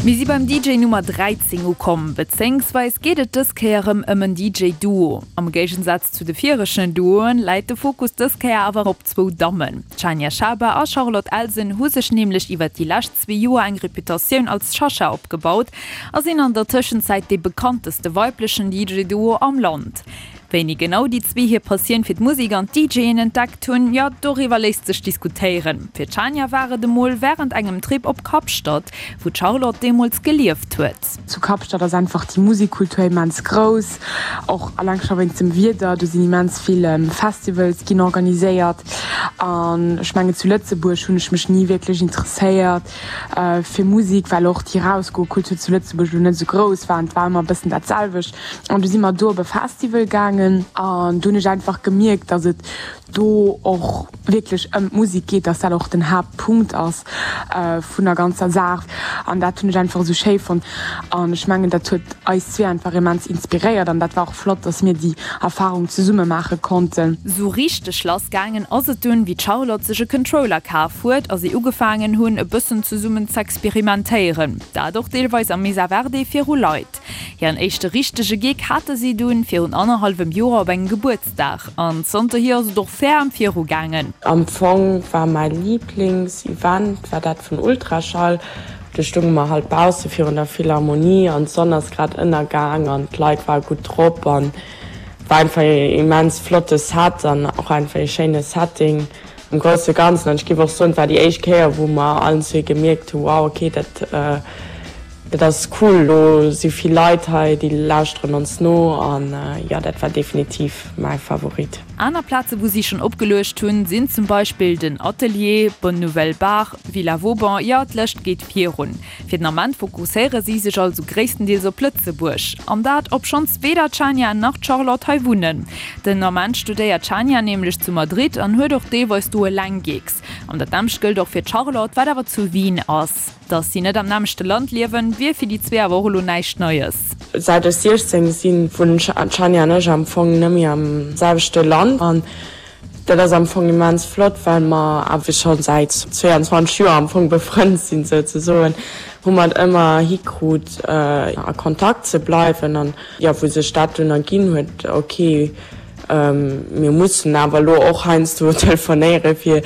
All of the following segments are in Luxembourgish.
Mir si beim DJ Nummer 13 ukomm, bezéingsweis geet et dës Kéier erëm ëm en DJ Duo. Am Géigensaz zu de viregten Duoen läit de Fokus dës Kéier awer op zwou Dammen. D'Shania Schaber a Charlotte Elsen hu sech nämlech iwwert déi lescht zwee Joer eng Reputatioun als Shasha opgebaut a sinn an der Tëschenzäit dee bekannteste weiblechen DJ Duo am Land. Wéini genau déi zwee hir Passioun fir d'Musek an d'DJen entdeckt hunn, jo doriwwer léisst sech diskutéieren. Fir d'Shania war et emol wärend engem Trip op Kapstadt, wou d'Charlotte deemools gelieft huet. Zu Kapstadt ass einfach déi Musikkultur immens grouss, och alleng scho wéinst dem Wieder. Do sinn immens vill Festivals ginn organiséiert an ech mengen zu Lëtzebuerg hunn ech mech ni wierklech interesséiert fir Musik, well och déi Rausgokultur zu Lëtzebuerg elo net esou grouss war an et war ëmmer e bëssen dat selwecht. An du si mer do op e Festival gaangen an do hunn ech einfach gemierkt, dass et do och wierklech ëm d'Musek geet, dass dat och den Haaptpunkt ass vun der ganzer Saach. An dat hunn ech einfach esou schéi fonnt. An ech mengen, dat huet eis zwee einfach immens inspiréiert an dat war och flott, dass mir déi Erfarung zesumme maache konnten. Sou richteg lass gaangen ass et dunn, wéi d'Charlotte sech e Controller kaf huet a si ugefaangen hunn, e bëssen zesummen z'experimentéieren. Dat och deelweis am Mesa Verde viru Leit. Hiren éischte richtege Gig hate si dunn virun annerhallwem Joer op engem Gebuertsdag an zanterhier ass et och ferm viru gaangen. Am Fong war mäi Liiblings-Event war dat vun Ultraschall. Do stounge mer halt bausse virun der Philharmonie an d'Sonn ass grad ënnergaang an d'Leit ware gutt drop an war einfach ee immens flotte Set an och einfach ee schéine Setting am grousse Ganzen. An ech géif och soen, et war déi éischt Kéier wou mer allen zwee gemierkt hu, wow okay dat Dat ass cool, do si vill Leit hei, déi lauschteren ons no an jo, dat war definitiv mäi Favorit. Aner Plaze wou si schonn opgeluecht hunn, sinn zum Beispill den Atelier, Bonne Nouvelle Bar, Villa Vauban, jo d'Lëscht geet virun. Fir den Ament fokusséiere si sech also gréisstendeels op Lëtzebuerg. An dat obschonns weder d'Shania nach d'Charlotte hei wunnen. Den Ament studéiert d'Shania nämlech zu Madrid an huet och deelweis do eleng Gigs. An dat nämmlecht gëllt och fir d'Charlotte, wat awer zu Wien ass. Dass si net am nämmlechte Land liewen, wier fir déi zwee awer och elo näischt Neies. Säit ech 16 sinn, wunnen d'Shania an ech am Fong net méi am selwechte Land. An dat ass am Fong immens flott, well mer awer scho säit 22 Joer am Fong befrënnt sinn souzesoen, hu mer et ëmmer hikrut a Kontakt ze bleiwen. An jo, wou sech dat dunn erginn huet, ok, Mir mussen awer elo och heiansdo telefonéiere fir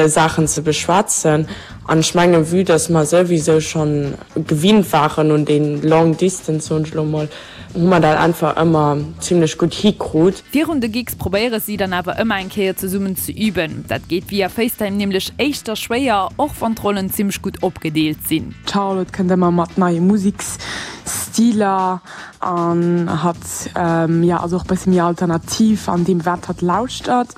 Saachen ze beschwätzen. An ech mengen, vue dass mer souwisou schonn gewinnt waren un dee long distance, soen ech elo emol, hu mer dat einfach ëmmer zimlech gutt hikrut. Virun de Gigs probéiere si dann awer ëmmer eng Kéier zesummen ze üben. Dat geet via FaceTime nämlech éischter schwéier, och wann d'Rollen zimmlech gutt opgedeelt sinn. D'Charlotte kënnt ëmmer mat neie Museksstiler. An hatt, jo, ass och e bëssi méi alternativ an deem, wat hatt lauschtert.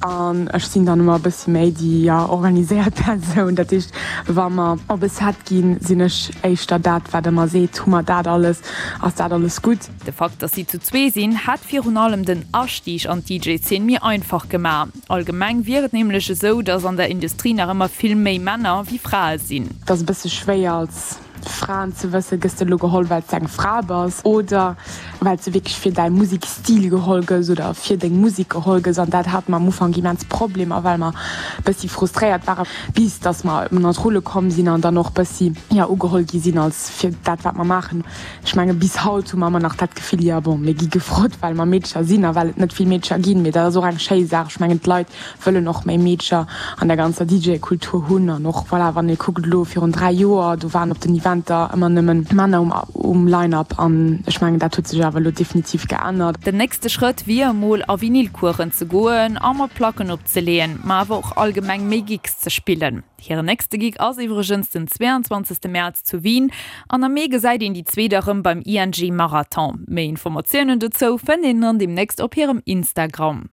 An ech sinn dann ëmmer e bëssi méi déi, jo, organiséiert Persoun. Dat heescht, wa mer op e Set ginn, sinn ech éischter dat, wat ëmmer seet, Hu mer dat alles? Ass dat alles gutt? De Fakt, dass si zu zwee sinn, hätt virun allem den Astieg an d'DJ-Zeen méi einfach gemaach. Allgemeng wier et nämlech esou, dass an der Industrie nach ëmmer vill méi Männer wéi Frae sinn. Et ass e bësse schwéier als Fraen ze wëssen, gëss de elo geholl well s de eng Fra bass oder well s de wierklech fir däi Musekstil geholl gëss oder fir deng Musek geholl gëss. An dat hate mer am Ufank immens Problemer, well mer bëssi frustréiert ware bis datt mer an d'Rulle komm sinn an dann och bëssi, jo, ugeholl gi sinn als fir dat wat mer maachen. Ech menge bis haut hu mer ëmmer nach dat Gefill, jo bon, mir gi gefrot well mer Meedcher sinn a well et net vill Meedcher ginn. Mee dat ass och eng schéi Saach. Ech mengen d'Leit wëllen och méi Meedcher an der ganzer DJ-Kultur hunn an och, voilà, wann ee kuckt elo virun 3 Joer, do waren op den Eventer ëmmer nëmmen Männer um um Line-Up an ech mengen dat huet sech awer elo definitiv geännert. Den nächste Schrëtt wier emol a Vinylcoursen ze goen a mat Placken opzeleeën, ma awer och allgemeng méi Gigs ze spillen. Hiren nächste Gig ass iwwregens den 22 Mäerz zu Wien an am Mee gesäit een déi zwee da rëm beim ING Marathon. Méi Informatiounen dozou fënnt een dann deemnächst op hirem Instagram.